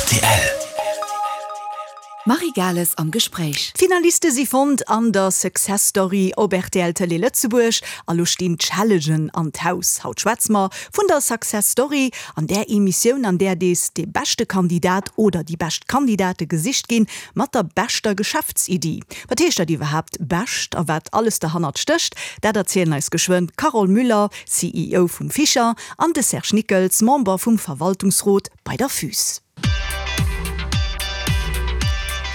Rtl. D'Marie Gales am Gespréich. D'Finaliste si fonnt an der Success Story op rtl Tëlee Lëtzebuerg a lo stinn d'Challengen an d'Haus. Haut schwätze mer vun der Success Story, an där Emissioun an där dees dee beschte Kandidat oder déi bescht Kandidate gesicht ginn mat der beschter Geschäftsiddi. Wat heescht dat iwwerhaapt bescht a wat alles derhannert stécht, dat erzielen eis geschwënn d'Carole Müller, CEO vum Fischer, an de Serge Nickels, Member vum Verwaltungsrot bei der FUS.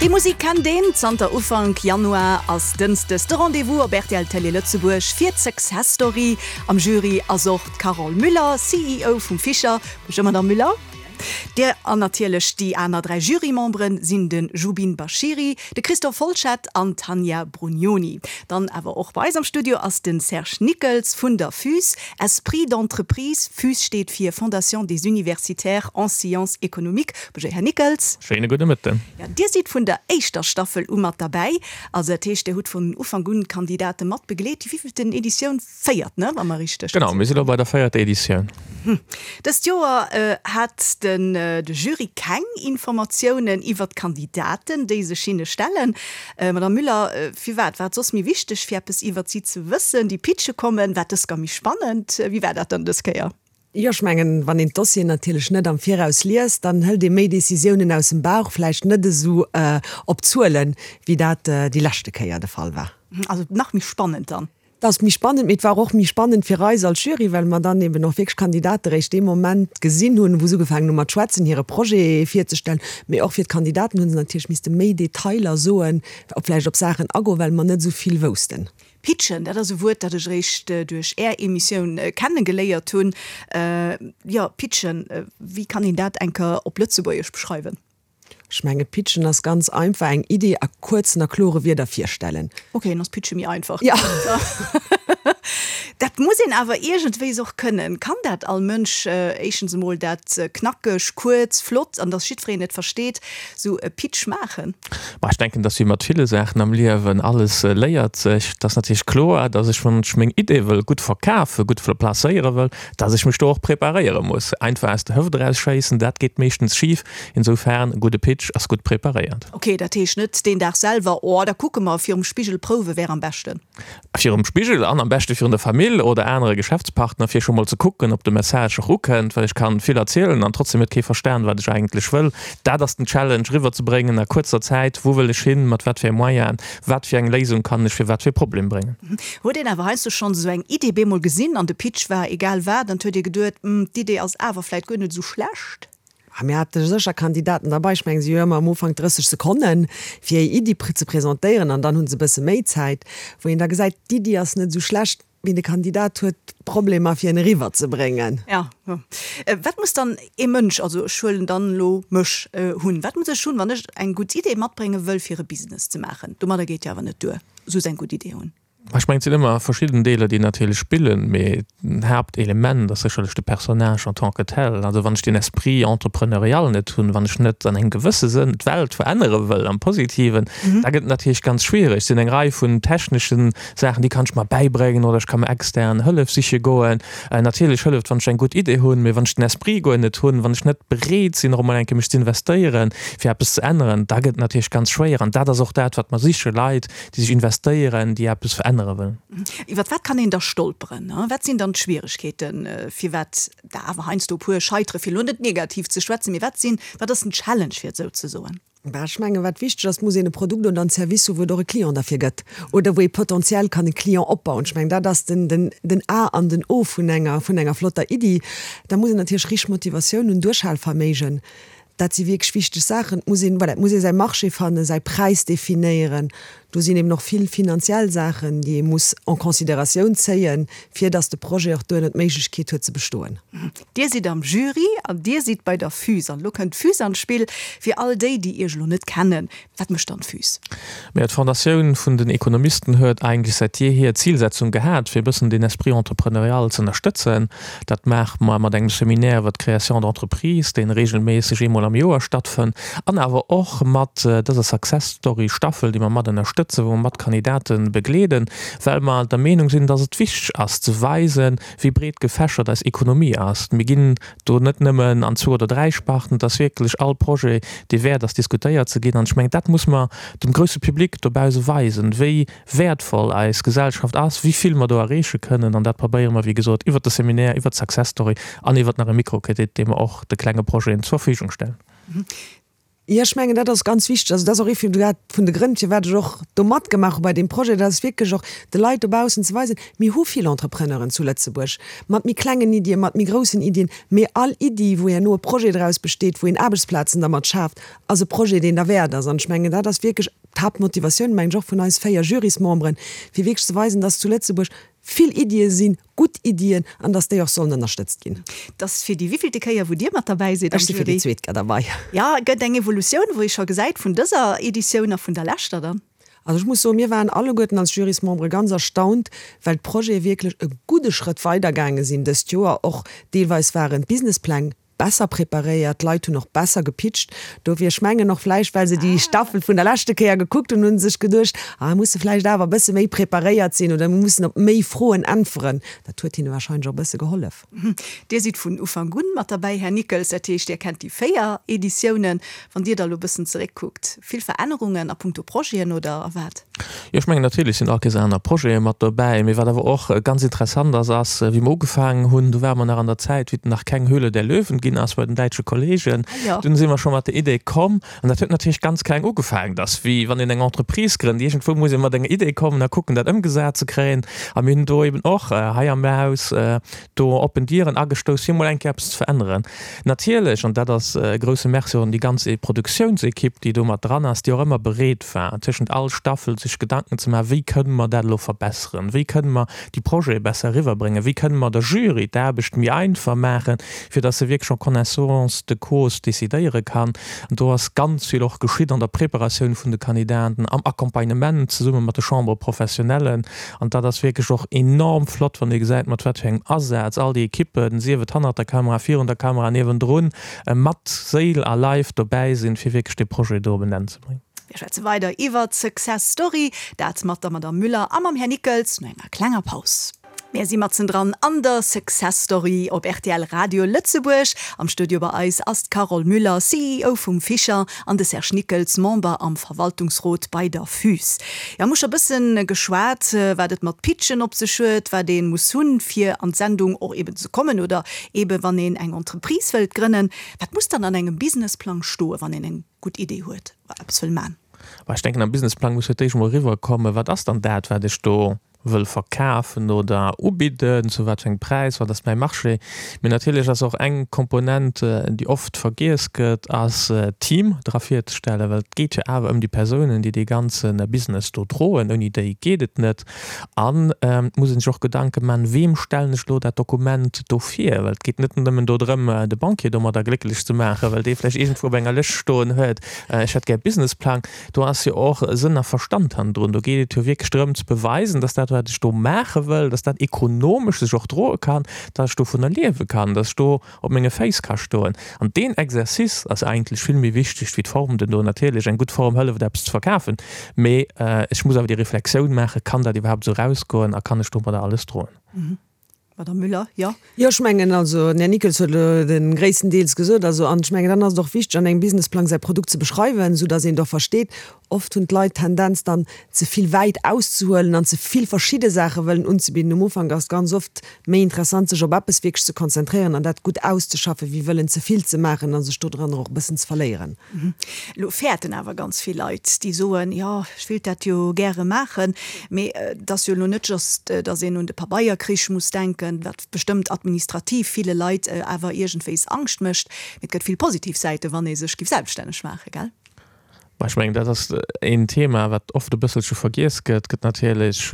Déi Musik kennt een, zanter Ufank Januar ass dënschdes de Rendez-vous op rtl Télé Lëtzebuerg fir d'Success Story. Am Jury ass och d'Carole Müller, CEO vum Fischer. Bonjour Madame Müller. Dir an natierlech déi aner 3 Jurymemberen sinn de Jubin Bashiri, de Christophe Folschette an d'Tanja Brugnoni. Dann awer och bei eis am Studio ass de Serge Nickels vun der FUS, Esprit d'entreprise. FUS steet fir Fondation des universitaires en sciences économiques. Bonjour Här Nickels. Schéine gudde Mëtten. Jo, Dir sidd vun der éischter Staffel u mat derbäi. Also dat heescht, Dir hutt vun Ufank un d'Kandidate mat begleet. Déi wéivilten Editioun? Véiert, ne, wa mer richteg. Genau, mir si lo bei der véierter Editioun. Dëst Joer hat den de Jury keng Informatiounen iwwer d'Kandidaten, déi sech hinne stellen. Madame Müller, firwat war et soss méi wichteg, fir eppes iwwer si ze wëssen, déi pitche kommen? War dës gar méi spannend? Wéi war dat dann dës Kéier? Jo, ech mengen, wann een d'Dossieren natierlech net am Viraus liest, dann hëlt ee méi Décisiounen aus dem Bauch, vläicht net esou op Zuelen, wéi dat déi leschte Kéier de Fall war. Also nach méi spannend dann? Et ass méi spannend, mee et war och méi spannend fir eis als Jury, well mer dann eben och wierklech Kandidate réischt dee Moment gesinn hunn, wou se ugefaangen hu mat schwätzen, hire Projet virzestellen. Mee och fir d'Kandidaten hu se natierlech misste méi Detailer soen, op vläicht op Saachen agoen, well mer net esou vill woussten. Pitchen, dat ass e Wuert, dat ech eréischt duerch Är Emissioun kenne geléiert hunn. Jo, pitchen, wéi kann een dat eng Kéier op Lëtzebuergesch beschreiwen? Ech menge pitchen ass ganz einfach, eng Idee a kuerzen a klore Wierder virstellen. Ok, dann ass pitche méi einfach. Ja. Dat muss een awer iergendwéis och kënnen. Kann dat all Mënsch? Éischtens emol dat knackeg, kuerz, flott an dass jiddwereen et versteet, sou e Pitch maachen? Ma ech denken, dass wéi mat ville Saachen am Liewen, alles léiert sech. Et ass natierlech kloer, dass ech, wann ech meng Idee wëll gutt verkafen, gutt placéiere wëll, dass ech mech do och preparéiere muss. Einfach aus der Hëft eraus schéissen, dat geet meeschtens schif. Insofern, e gudde Pitch ass gutt preparéiert. Ok, dat heescht net deen Dag selwer, oh da kucke mer, virum Spigel prouwe wär am beschten. Virum Spigel an am beschte virun der Famill oder anere Geschäftspartner, fir scho mol ze kucken, ob de Message och ukënnt, well ech kann vill erzielen an trotzdem huet kee verstan, wat ech eigentlech wëll. Dat ass den Challenge, eriwwer ze bréngen a kuerzer Zäit, wou wëll ech hin, mat wat fir Moyenen, wat fir eng Léisung kann ech fir wat fir e Problem bréngen. Huet een awer heiansdo schonns esou eng Idee bemol gesinn an de Pitch war egal wat an 't huet ee geduet, hm, d'Idee ass awer vläit guer net esou schlecht? A mir hate sécher Kandidaten derbei, ech mengen, si hu jo ëmmer am Ufank 30 Sekonnen, fir hir Iddi ze presentéieren an dann hu se e bësse méi Zäit, wou een da gesäit, d'Iddi ass net esou schlecht, mee de Kandidat huet Problemer, fir en eriwwerzebréngen. Jo, jo. Wat muss dann ee Mënsch, also ech huelen dann elo mech, hunn? Wat muss ech hunn, wann ech eng gutt Idee matbrénge wëll, fir e Business ze maachen? Domadder geet jo awer net duer, soss eng gutt Idee hunn. Ech mengen, et sinn ëmmer verschidden Deeler, déi natierlech spillen, mee den Haaptelement ass sécherlech de Personnage en tant que tel. Also wann ech deen Esprit entrepreneurial net hunn, wann ech net an engem gewësse Sënn d'Welt verännere wëll am Positiven, da gëtt et natierlech ganz schwiereg. Et sinn eng Rei vun techneschen Saachen, déi kann ech mer bäibréngen oder ech ka mer extern Hëllef siche goen. Natierlech hëlleft, wann ech eng gutt Idee hunn, mee wann ech den Esprit guer net hunn, wann ech net bereet sinn, och emol eng Kéier mech z'investéieren, fir eppes ze änneren, da gëtt et natierlech ganz schwéier. An dat ass och dat, wat mer sichen, Leit, déi sech investéieren, déi eppes verännere wëllen. Iwwer wat kann een da stolperen? Wat sinn dann d'Schwieregkeeten, firwat der awer heiansdo e puer scheitere, fir elo net negativ ze schwätzen, mee wat sinn, wat ass den Challenge, fir et esou ze soen? Bah, ech mengen, wat wichteg ass, et muss een e Produkt oder en Service hu wou et och e Client derfir gëtt oder wou ee potentiell kann e Client opbauen. Ech mengen, dat ass den, den, den A an den O vun enger, vun enger flotter Iddi. Da muss een natierlech richteg Motivatioun hunn, Duerchhalverméigen. Dat si wierklech wichteg Saachen. Et muss een, voilà, et muss ee säi Marché fannen, säi Präis definéieren. Do sinn eben och vill finanziell Saachen, déi ee muss en considératioun zéien, fir datt de Projet och duerno d'Méiglechkeet huet ze bestoen. Dir sidd am Jury an Dir sidd bei der FUS. An elo kënnt d'FUS an d'Spill. Fir all déi, déi Iech elo net kennen, Wat mécht dann d'FUS? Majo, d'Fondatioun vun den Ekonomisten huet eigentlech säit jeehier d'Zilsetzung gehat, fir e bëssen den Esprit entrepreneurial z'ënnerstëtzen. Dat maache mer mat engem Seminaire iwwer d'Création d'entreprise, dee regelméisseg eemol. eemol am Joer stattfënnt, an awer och mat dëser Success Story Staffel, déi mer mat ënnerstëtzen, wou mer mat Kandidate begleeden, well mer der Meenung sinn, dass et wichteg ass ze weisen, wéi breet gefächert eis Ekonomie ass. Mir ginn do net nëmmen an zwou oder dräi Sparten, et ass wierklech all Projet, dee wäert ass diskutéiert ze ginn. An ech mengen, dat muss mer dem grousse Public dobause weisen, wéi wäertvoll eis Gesellschaft ass, wéi vill mer do erreeche kënnen. An dat probéiere mer, wéi gesot, iwwert de Seminaire, iwwert d'Success Story an iwwert nach e Mikrokredit, dee mer och de klenge Projeten zur Verfügung stellen. Jo, ech mengen, dat ass ganz wichteg. Also dat ass och ee vun de vun de Grënn, firwat ech och do matgemaach hu bei deem Projet. Dat ass wierklech och de Leit dobaussen ze weisen, Mir hu vill Entrepreneuren zu Lëtzebuerg, mat méi klengen Iddien, mat méi groussen Iddien, mee all Iddi, wou herno e Projet draus besteet, wou een Aarbechtsplazen dermat schaaft, ass e Projet, deen derwäert ass. An ech mengen, dat ass wierklech d'Haaptmotivatioun, mengen ech, och vun eis 4 Jurysmemberen, fir wierklech ze weisen, dass zu Lëtzebuerg vill Iddie sinn, gutt Iddien, an dass déi och sollen ënnerstëtzt ginn. Et ass fir déi wéivillte Kéier, wou Dir mat derbäi sidd am Ech si fir déi Jury? zweet Kéier derbei. Jo, et gëtt eng Evolutioun, wou ee scho gesäit vun dëser Editioun a vun der leschter dann. Also ech muss soen, mir waren alleguerten als Jurysmembere ganz erstaunt, well d'Projete wierklech e gudde Schrëtt weidergaange sinn dëst Joer. Och deelweis waren d'Businesspläng besser preparéiert, d'Leit hunn och besser gepitcht. Dofir, ech mengen och vläicht, well se déi Staffel vun der leschte Kéier gekuckt hunn, hu se sech geduecht, ah mir musse vläicht awer e bësse méi preparéiert sinn oder mir mussen op méi Froen äntweren. Dat huet hinne warscheinlech och e bësse gehollef. Dir sidd vun Ufank un mat derbäi, Här Nickels, dat heescht, Dir kennt déi 4 Editiounen. Wann Dir da elo e bëssen zeréckkuckt, vill Verännerungen a puncto Projeten oder a wat? Jo, ech mengen natierlech sinn all Kéiers aner Projete mat dobäi. Mee wat awer och ganz interessant ass, ass, wéi mer ugefaangen hunn, do ware mer nach an der Zäit, wéi et nach keng Höhle der Löwen ginn ass bei den däitsche Kollegen. Dunn si mer scho mat der Idee komm, an dat huet natierlech ganz kleng ugefaangen, dass wéi wann een eng Entreprise grënnt, iergendwou muss ee mat enger Idee kommen a kucken, dat ëmgesat ze kréien. A mir hunn do eben och hei am Haus do oppen Dieren agestouss, fir emol eng Kéier eppes ze veränneren. Natierlech, an dat ass e grousse Merci och un déi ganz Produktiounsekipp, déi do mat dran ass, déi och ëmmer bereet war, tëschent all Staffel sech Gedanken ze maachen, wéi kënne mer dat elo verbesseren, wéi kënne mer déi Projete besser eriwwerbréngen, wéi kënne mer der Jury d'Aarbecht méi einfach maachen, fir datt se wierklech en connaissance de cause decidéiere kann. An do ass ganz vill och geschitt an der Preparatioun vun de Kandidaten, am Accompagnement zesumme mat de Chambres professionnellen. An dat ass wierklech och enorm flott, wann ee gesäit, mat wat fir engem Asaz all déi Ekippen, sief et hannert der Kamera, virun der Kamera, niewendrun, mat Séil a Leif dobäi sinn, fir wierklech dee Projet do op en Enn ze bréngen. Mir schwätze weider iwwert d'Success Story, dat mat der Madamm Müller a mam Här Nickels no enger klenger Paus. Mir si matzendran an der Success Story op rtl Radio Lëtzebuerg. Am Studio bei eis ass d'Carole Müller, CEO vum Fischer, an de Serge Nickels, Member am Verwaltungsrot bei der FUS. Jo, mir hu scho bëssen geschwat, wat et mat Pitchen op sech huet, wat ee muss hunn, fir an d'Sendung och eben ze kommen oder eben wann een eng Entreprise wëllt grënnen. Wat muss dann an engem Businessplang stoen, wann een eng gutt Idee huet oder eppes wëll man? Bah, ech denken, am Businessplang muss fir d'éischt emol eriwwerkommen, wat ass dann dat, wat ech do wëll verkafen oder ubidden, zu wat fir engem Präis, wat ass mäi Marché. Mee natierlech ass och eng Komponent, déi oft vergiess gëtt, ass d'Team dra virzestellen, well et geet jo awer ëm déi Persounen, déi dee ganze Business do droen. Ouni déi geet et net. An et muss ee sech och Gedanke maachen, Weem stellen ech elo dat Dokument do vir? Well et geet net nëmmen do drëm, de Banquier domadder glécklech ze maachen, well dee vläicht iergendwou op enger Lëscht stoen huet, ech hätt gär e Businessplang. Do ass jo och Sënn a Verstand hannendrun. Do geet et jo wierklech drëm ze beweisen, dass dat, wat ech do maache wëll, dass dat ekonomesch sech och droe kann, dass ech dovunner liewe kann, dass ech do op menge Féiss ka stoen. An deen Exercice ass eigentlech vill méi wichteg wéi d'Form duerno. Natierlech, eng gutt Form hëlleft eppes ze verkafen, mee ech muss awer déi Reflexioun maachen, Kann dat iwwerhaapt esou erausgoen a kann ech domadder alles droen? Madame Müller, jo. Jo, ech mengen, also den Här Nickels huet elo de gréisstendeels gesot. Also, an ech mengen, dann ass et och wichteg, an engem Businessplang säi Produkt ze beschreiwen, soudass een et och versteet. Oft hunn d'Leit d'Tendenz dann, ze vill wäit auszehuelen an ze vill verschidde Saache wëllen unzebidden. Um Ufank ass et ganz oft méi interessant, sech op eppes wierklech ze konzentréieren an dat gutt auszeschaffen, wéi wëllen ze vill ze maachen a sech dodranner och e bëssen ze verléieren. Elo fäerten awer ganz vill Leit, déi soen, jo, ech wéilt dat jo gäre maachen, mee et ass jo elo net just, datt een un de Pabeierkrich muss denken, wat bestëmmt administrativ ville Leit awer iergendwéis Angscht mécht, mee et gëtt vill positiv Säiten, wann ee sech giff selbststänneg maachen, gell? Ech mengen, dat ass een Thema, wat oft e bësselche vergiess gëtt. Et gëtt natierlech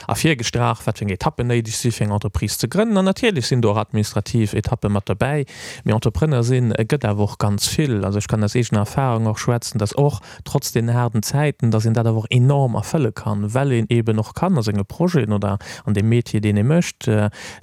ervirgestrach, wat fir eng Etappen néideg si fir eng Entreprise ze grënnen. An natierlech sinn do och administrativ Etappe mat derbäi. Mee Entrepreneur sinn gëtt awer och ganz vill. Also ech kann aus eegener Erfahrung och schwätzen, dass och trotz deenen haarden Zäiten, dass een dat awer och enorm erfëlle kann, well een eeben och kann a senge Projeten oder an deem Metier, deen ee mécht,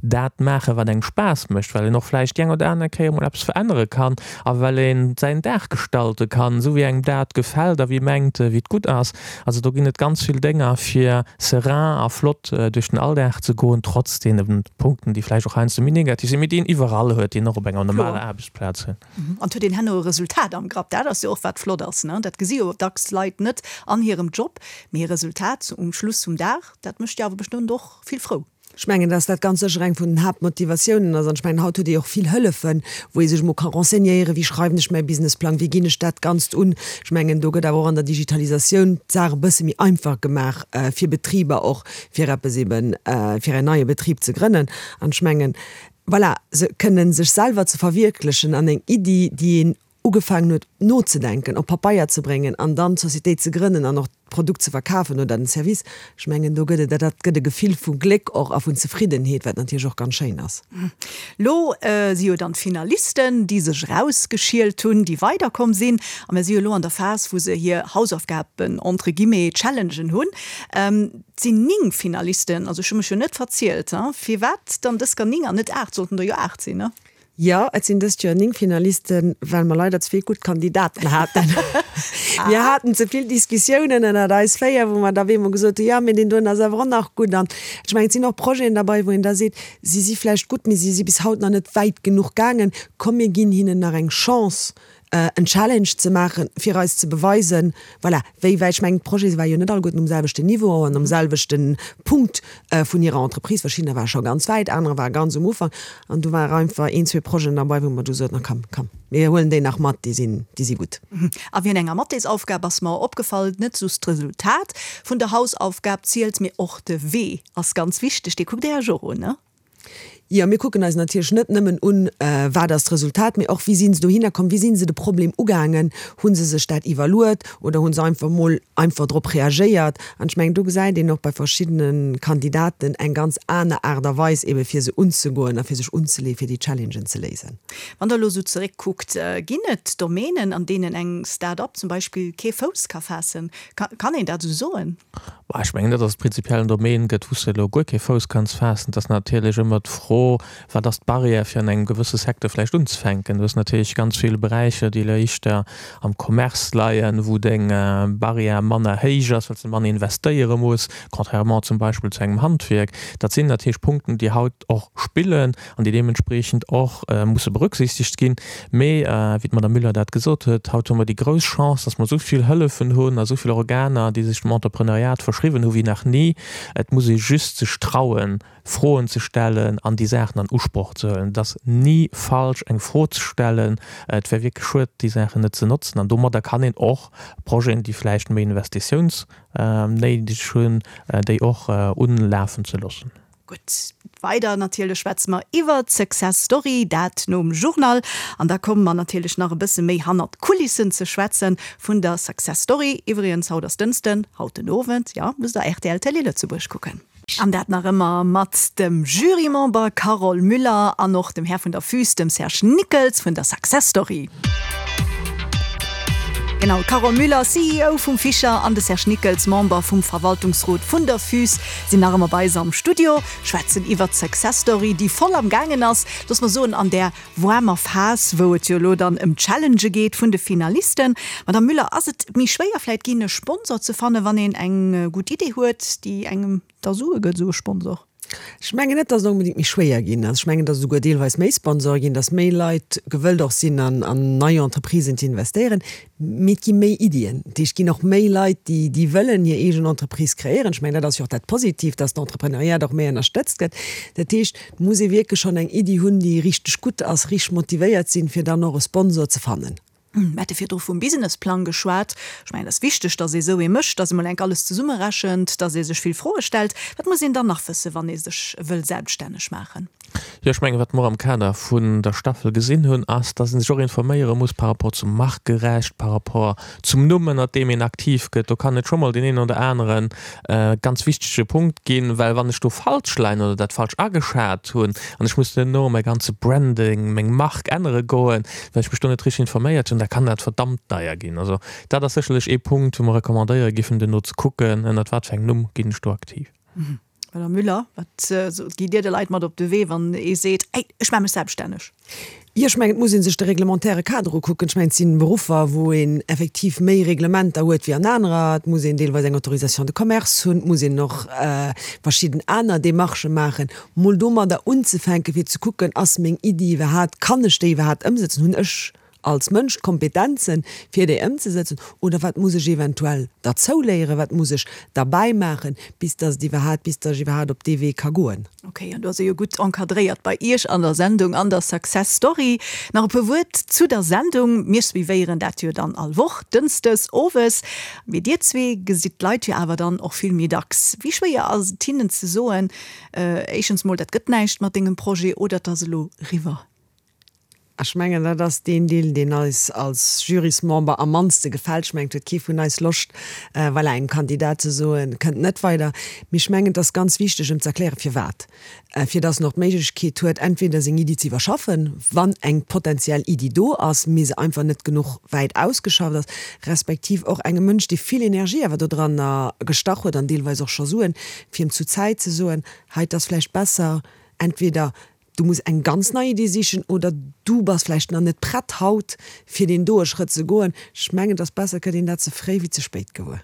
dat maachen, wat engem Spaass mécht, well een och vläicht déi eng oder aner Kéier emol eppes verännere kann a well een säin Dag gestalte kann, esou wéi engem dat gefält a wéi ee mengt, wéi et gutt ass. Also do ginn et ganz vill Dénger, fir serein a flott duerch den Alldag ze goen, trotz deene Punkten, déi vläicht och heiansdo méi negativ sinn, mee déi een iwwerall huet, déi een och op enger normaler Aarbechtsplaz huet. An et huet een herno e Resultat am Grapp. Dat ass jo och wat flott ass, ne? Dat gesi jo dacks Leit net an hirem Job, mee e Resultat um Schluss vum Dag, dat mécht jo awer bestëmmt och vill frou. Ech mengen, dass dat ganz sécher eng vun den Haaptmotivatiounen ass. An ech mengen, haut huet ee och vill Hëllefen, wou ee sech emol ka renseignéieren, wéi schreiwen ech mäi Businessplang, wéi ginn ech dat Ganzt un. Ech mengen, do gëtt awer och an der Digitalisatioun d'Saach e bësse méi einfach gemaach fir Betriber och, fir eppes eben, fir en neie Betrib ze grënnen. An ech mengen, voilà, se kënnen sech selwer ze verwierklechen an eng Iddi, déi een ugefaangen huet nozedenken, op Papeier ze bréngen an dann d'Societéit ze grënnen an och d'Produkt ze verkafen oder den Service, ech mengen do gëtt et, dat gëtt e Gefill vu Gléck och a vun Zefriddenheet, wat natierlech och ganz schéin ass. Lo si jo dann d'Finalisten, déi sech erausgeschielt hunn, déi weiderkomm sinn. A mir si jo lo an der Phas, wou se hir Hausaufgaben, entre guillemets, Challengen hunn. Et sinn 9 Finalisten, also ech hu mech jo net verzielt. Firwat dann dës gar 9 an net 8? Sollten der jo 8 sinn, ne? Jo, et sinn dëst Joer 9 Finalisten, well mer leider ze vill gutt Kandidaten haten. Mir haten ze vill Diskussiounen ënnert eis 4, wou mer da op eemol gesot hunn, jo, mee deen doen ass awer och nach gutt. An ech mengen, et sinn och Projeten derbei, wou een da seet, si si vläicht gutt, mee si si bis haut nach net wäit genuch gaangen. Komm, mir ginn hinnen nach eng Chance, en Challenge ze maachen, fir eis ze beweisen, voilà, wéi wäit, ech mengen, d'Projete ware jo net alleguerten um selwechten Niveau an um selwechte Punkt vun hirer Entreprise. Verschiddener ware scho ganz wäit, anerer ware ganz um Ufank. An do ware einfach een, zwee Projeten derbei, wou mer du soten, na komm, komm, mir huelen déi nach mat, déi sinn, déi si gutt. A wien enger Mathesaufgab ass mer opgefall, net just d'Resultat vun der Hausaufgab zielt, mee och de Wee ass ganz wichteg. Dee kuckt Dir Iech och un, ne? Jo, mir kucken eis natierlech net nëmmen un, wat ass d'Resultat, mee och, wéi si se dohinner komm, wéi si se de Problem ugaangen, hu se sech dat iwwerluet oder hu se einfach mol einfach drop reagéiert. An ech mengen, do gesäit een och bei verschiddene Kandidaten eng ganz aner Aart a Weis eebe fir se unzegoen a fir sech unzeleeën, fir déi Challengen ze léisen. Wann Der elo esou zeréckkuckt, ginn et Domänen, an deenen eng Start-up zum Beispill kee Fouss ka faassen? Kann een dat esou soen? Bah, ech mengen net, datt et prinzipiell en Domaine gëtt, wou s de elo guer kee Fouss kanns faassen. Et ass natierlech ëmmer d'Fro, Wat ass d'Barrière, fir an engem gewësse Secteur vläicht unzefänken? Du hues natierlech ganz vill Beräicher, déi elo éischter am Commerce leien, wou deng Barrière manner héich ass, well s de manner investéiere muss, contrairement zum Beispill zu engem Handwierk. Dat sinn natierlech Punkten, déi haut och spillen an déi deementspreechend och musse berücksichtegt ginn. Mee wéi d'Madame Müller dat gesot huet, haut hu mer déi grouss Chance, dass mer esou vill Hëllefen hunn a esou vill Organer, déi sech dem Entrepreneuriat verschriwwen hu wéi nach ni. Et muss ee just sech trauen, Froen ze stellen an déi Saachen an Usproch ze huelen. Et ass ni falsch, eng Fro ze stellen. Et wär wierklech schued, déi Saachen net ze notzen. An domadder kann een och Projeten, déi vläicht méi Investitiounsnéideg hunn, déi och unlafen ze loossen. Gutt, weider natierlech schwätze mer iwwert d'Success Story, dat nom Journal. An da komme mer natierlech nach e bësse méi hannert d'Kulissen ze schwätze vun der Success Story. Iwwregens, haut ass Dënschden, haut den Owend, jo, musst der rtl Télé Lëtzebuerg kucken. An dat nach ëmmer mat dem Jurymember Carole Müller an och dem Här vun der Füs, dem Serge Nickels vun der Success Story. Genau, d'Carole Müller, CEO vum Fischer, an de Serge Nickels, Member vum Verwaltungsrot vun der Füs, sinn nach ëmmer bei eis am Studio, schwätzen iwwert d'Success Story, déi voll am gaangen ass, looss mer soen, an där waarmer Phas, wou et jo elo dann ëm d'Challengë geet vun de Finalisten. Madame Müller, ass et méi schwéier vläit ginn, e Sponsor ze fannen, wann een eng gutt Idee huet, déi engem da Sue gëtt, esou e Sponsor? Ech mengen net, datt et onbedéngt méi schwéier ginn ass. Ech mengen, datt et esouguer deelweis méi Sponsore ginn, datt méi Leit gewëllt och sinn, an nei Entreprisen ze investéieren. Mee et gi méi Iddien. Dat heescht, et ginn och méi Leit, déi, déi wëllen hir eegen Entreprise kreéieren. Ech mengen, dat ass jo och dat Positiivt, datt d'Entrepreneuriat och méi ënnerstëtzt gëtt. Dat heescht, et muss ee wierklech schonn eng Iddi hunn, déi richteg gutt ass, richteg motivéiert sinn, fir dann och e Sponsor ze fannen. Mir hate virdru vum Businessplang geschwat. Ech mengen, et ass wichteg, datt ee esou ee mécht, datt ee mol enk alles zesummerechent, datt ee sech vill Froe stellt. Wat muss een dann nach wëssen, wann ee sech wëll selbststänneg maachen? Jo, ech mengen, wat mer am Kader vun der Staffel gesinn hunn, ass, datt ee sech och informéiere muss par rapport zum Markerecht, par rapport zum Numm, ënnert deem een aktiv gëtt. Do kann et scho mol deen een oder anere ganz wichtege Punkt ginn, well wann ech do falsch leien oder dat falsch ageschat hunn an ech muss duerno mäi ganze Branding, meng Mark ännere goen, well ech mech do net richteg informéiert hunn, da kann dat verdammt deier ginn. Also dat ass sécherlech ee Punkt, wou mer recommandéiere giffen, duerno ze kucken, ënnert wat fir engem Numm ginn ech do aktiv. Madame Müller, wat gitt Dir de Leit mat op de Wee, wann ee seet, Hey, ech maache mech selbststänneg? Jo, ech mengen, et muss ee sech de reglementaire Kader ukucken. Ech mengen, et si Beruffer, wou een effektiv méi Reglementer huet wéi an anerer. Et muss een deelweis eng Autorisation de commerce hunn, et muss een och verschidden aner Démarchë maachen. Mol domadder unzefänken, fir ze kucken, Ass meng Iddi iwwerhaapt, kann ech déi iwwerhaapt ëmsetzen, hunn ech als Mënsch d'Kompetenzen, fir déi ëmzesetzen, oder wat muss ech eventuell derzouléieren, wat muss ech derbäi maachen, bis dass et iwwerhaapt, bis dass ech iwwerhaapt op dee Wee ka goen. Ok, an do ass e jo gutt encadréiert bei Iech an der Sendung, an der Success Story. Nach e puer Wuert zu der Sendung. Mir suivéieren dat jo dann all Woch, dënschdes owes. Mee Dir zwee gesitt d'Leit jo awer dann och vill méi dacks. Wéi schwéier ass et hinnen ze soen, éischtens mol, dat gëtt näischt mat dengem Projet, oder et ass elo riwwer? Ech mengen, dat ass deen Deel, deen eis als Jurysmember am mannste gefält. Ech mengen, et huet kee vun eis Loscht, voilà, engem Kandidat ze soen, kënnt net weider. Mee ech mengen, et ass ganz wichteg, em ze erklären, firwat. Fir dass en och d'Méiglechkeet huet, entweder seng Iddi ze iwwerschaffen, wann eng potenziell Iddi do ass, mee se einfach net genuch wäit ausgeschafft ass, respektiv och engem Mënsch, dee vill Energie awer dodranner gestach huet an deelweis och scho Suen, fir em zu Zäit ze soen, hei, et ass vläicht besser, entweder Du muss eng ganz nei Idee sichen oder du bass vläicht nach net prett haut fir deen doe Schrëtt ze goen. Ech mengen, et ass besser, et gëtt een dat ze fréi wéi ze spéit gewuer.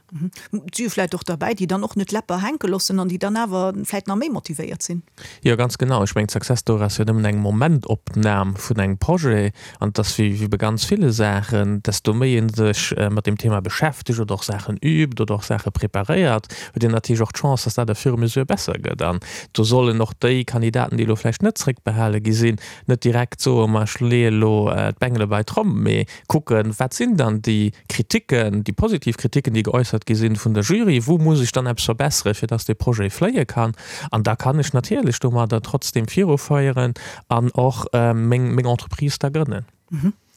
Et si jo vläicht och derbäi, déi dann och net d'Läpper hänke loossen an déi dann awer vläicht nach méi motivéiert sinn. Jo, ganz genau. Ech mengen, d'Success Story ass jo nëmmen eng Momentopnam vun engem Projet. An et ass wéi bei ganz ville Saachen, desto méi ee sech mat deem Thema beschäftegt oder och Saachen übt oder och Saache preparéiert, huet een natierlech och d'Chance, dass dat au fur et à mesure besser gëtt. An do sollen och déi Kandidaten, déi elo vläicht net zréckbehale gi sinn, net direkt soen, ma ech leeë elo d'Bengele bei d'Tromm, mee kucken, wat sinn dann déi Kriticken, déi positiv Kriticken, déi geäussert gi sinn vun der Jury, wou muss ech dann eppes verbesseren, fir dass dee Projet fléie kann. An da kann ech natierlech domadder trotzdem viruféieren an och meng meng Entreprise da grënnen.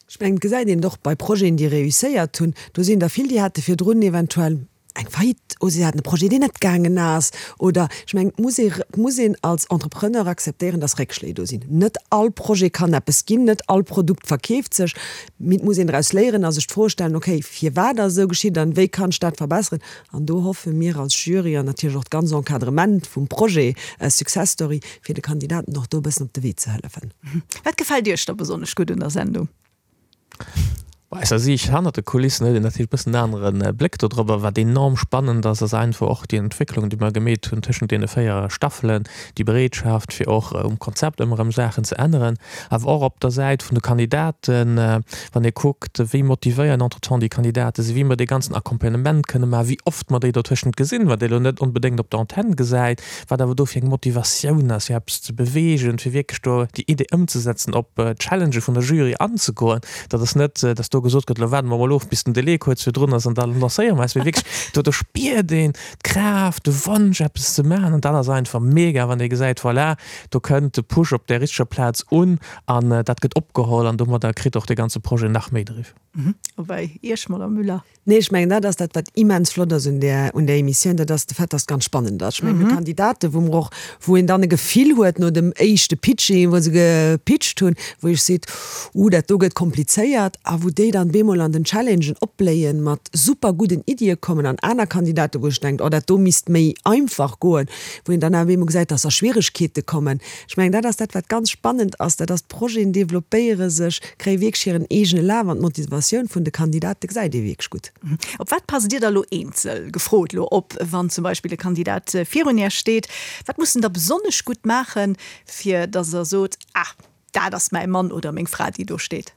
Ech mengen, et gesäit een et och bei Projeten, déi réusséiert hunn. Do sinn der vill, déi hate virdrun eventuell eng Faillite oder si haten e Projet, deen net gaangen ass. Oder ech mengen, et muss ee, et muss een als Entrepreneur akzeptéieren, dass Réckschléi do sinn. Net all Projet kann eppes ginn, net all Produkt verkeeft sech. Mee et muss een draus léieren a sech d'Fro stellen, okay, firwat ass esou geschitt an wéi kann ech dat verbesseren? An do hoffe mir als Jury an natierlech och d'ganz Encadrement vum Projet Success Story, fir de Kandidaten och do e bëssen op de Wee ze hëllefen. Wat gefält Iech da besonnesch gutt un der Sendung? Aus eiser Siicht hannert de Kulissen huet een natierlech e bëssen en anere Bléck dodrop. Wat enorm spannend ass, ass einfach och déi Entwécklung, déi mer gemeet hunn tëschent deene 4 Staffelen, déi Bereetschaft, fir och um Konzept ëmmer erëm Saachen ze änneren, awer och op der Säit vun de Kandidaten, wann ee kuckt, wéi motivéiert entretemps déi Kandidate sinn, wéi mer dee ganzen Accompagnement kënne maachen, wéi oft mer déi dotëschent gesinn, wat ee lo net onbedéngt op der Antenn gesäit, wat awer do fir eng Motivatioun ass, fir eppes ze beweegen, fir wierklech do déi Idee ëmzesetzen, op d'Challengë vun der Jury anzegoen. Dat ass net, dass do gesot gëtt, elo waarde mer mol of, bis den Delai kuerz virdrun ass an da lancéiere mer eis, mee wierklech, do do spiert een d'Kraaft, de Wonsch, eppes ze maachen an dat ass einfach mega, wann ee gesäit, voilà, do kënnt de Push op där richteger Plaz un an dat gëtt opgeholl an domadder kritt och dee ganze Projet nach méi Driff. A bei Iech, Madame Müller? Nee, ech mengen, dat ass dat, wat immens flott ass un där, un där Emissioun, dat ass de Fait, dass et ganz spannend ass. Ech mengen, mir hu Kandidaten, wou mer och, wou een dann e Gefill huet no dem éischte Pitching, wou se gepitcht hunn, wou ee seet, Uh, dat do gëtt komplizéiert, a wou déi dann bemol an den Challengen opbléien, mat super gudden Iddie kommen, an aner Kandidaten, wou ech denkt, oh, dat do misst méi einfach goen, wou een dann awer bemol gesäit, dass a Schwieregkeete kommen. Ech mengen, dat ass dat, wat ganz spannend ass, dat ass, d'Projeten developpéiere sech, kréie wierklech hiren eegene Laf an d'Motivatioun vun de Kandidate gesäit ee wierklech gutt. Op wat passt Dir da lo eenzel gefrot lo op, wann zum Beispill e Kandidat virun Iech steet? Wat muss en da besonnesch gutt maachen, fir datt Der sot, Ah, dat ass mäi Mann oder meng Fra, déi do steet?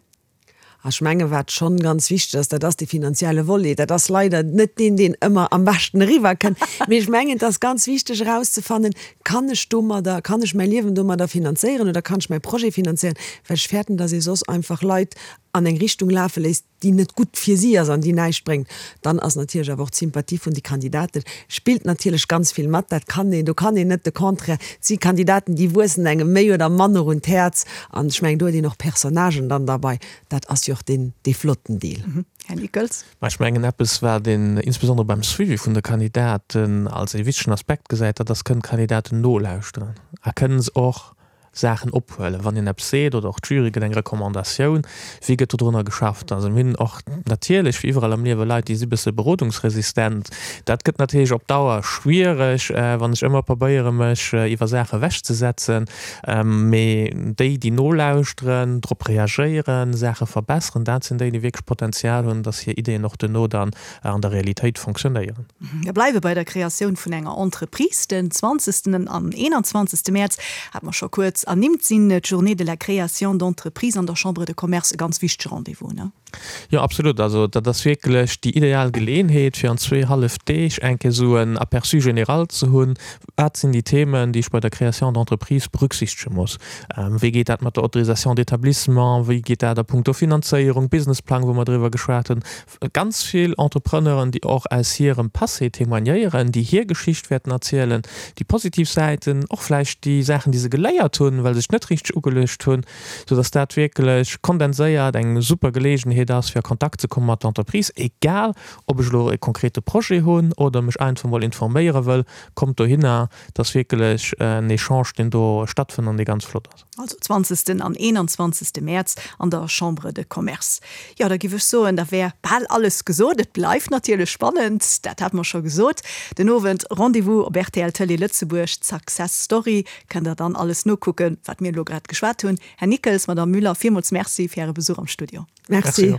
Ech menge wat schonn ganz wichteg ass, dat ass dee finanzielle Volet. Dat ass leider net deen, deen ëmmer am beschten eriwwer kënnt. Mee ech mengen, et ass ganz wichteg erauszefannen, Kann ech domadder, kann ech mäi Liewen domadder finanzéieren oder kann ech mäi Projet finanzéieren? Well ech fäerten, datt ee soss einfach Leit. an eng Richtung lafe léisst, déi net gutt fir si ass an déi näischt bréngt, dann ass natierlech awer och d'Sympathie vun de Kandidaten spillt natierlech ganz vill mat. Dat kann een, do kann een net de Contraire. Et si Kandidaten, déi wuessen engem méi oder manner un d'Häerz an ech mengen, do huet een och Personnagen dann derbei. Dat ass jo och deen, dee flotten Deel. Här Nickels. Mä ech mengen, eppes, wat een insbesondere beim Suivi vun de Kandidaten als ee wichtegen Aspekt gesäit, dat ass, Kënnen d'Kandidaten nolauschteren a kënnen se och Saachen ophuelen, wann een eppes seet oder och d'Jury gëtt eng Recommandatioun, wéi gëtt dodrunner geschafft? Also mir hunn och natierlech, wéi iwwerall am Liewe, Leit, déi si bësse berodungsresistent. Dat gëtt natierlech op Dauer schwiereg, wann ech ëmmer probéiere mech iwwer Saache ewechzesetzen. Mee déi, déi nolauschteren, drop reagéieren, Saache verbesseren, dat sinn déi, déi wierklech Potenzial hunn, dass hir Ideeën och duerno dann an der Realitéit fonctionnéieren. Mir bleiwe bei der Kreatioun vun enger Entreprise. Den 20. an 21. Mäerz, hat mer scho kuerz ernimmt, sinn d'Journées de la création d'entreprise an der Chambre de Commerce e ganz wichtege Rendez-vous, ne? Jo, absolut. Also dat ass wierklech déi ideal Geleeënheet, fir an zwee hallef Deeg eng Kéier esou en Aperçu général ze hunn, Wat sinn déi Themen, déi ech bei der Création d'entreprise berücksichtege muss? Wéi geet dat mat der Autorisation d'établissement? Wéi geet dat a puncto Finanzéierung, Businessplang, wou mer driwwer geschwat hunn? Ganz vill Entrepreneuren, déi och aus hirem Passé témoignéieren, déi hir Geschicht wäerten erzielen, déi positiv Säiten, och vläicht déi Saachen, déi se geléiert hunn, well se sech net richteg ugeluecht hunn, soudass dat wierklech kondenséiert eng super Geleegenheet ass, fir a Kontakt ze komme mat der Entreprise, egal ob ech elo e konkrete Projet hunn oder mech einfach mol informéiere wëll, kommt dohinner, et ass wierklech en Echange, deen do stattfënnt an dee ganz flott ass. Also 20. an 21. Mäerz an der Chambre de Commerce. Jo, da giff ech soen, da wär bal alles gesot. Et bleift natierlech spannend, dat hate mer scho gesot. Den Owend Rendez-vous op rtl Tëlee Lëtzebuerg, d'Success Story. Kënnt der dann alles nokucken, wat mir elo grad geschwat hunn. Här Nickels, Madame Müller, villmools Merci fir Äre Besuch am Studio. Merci.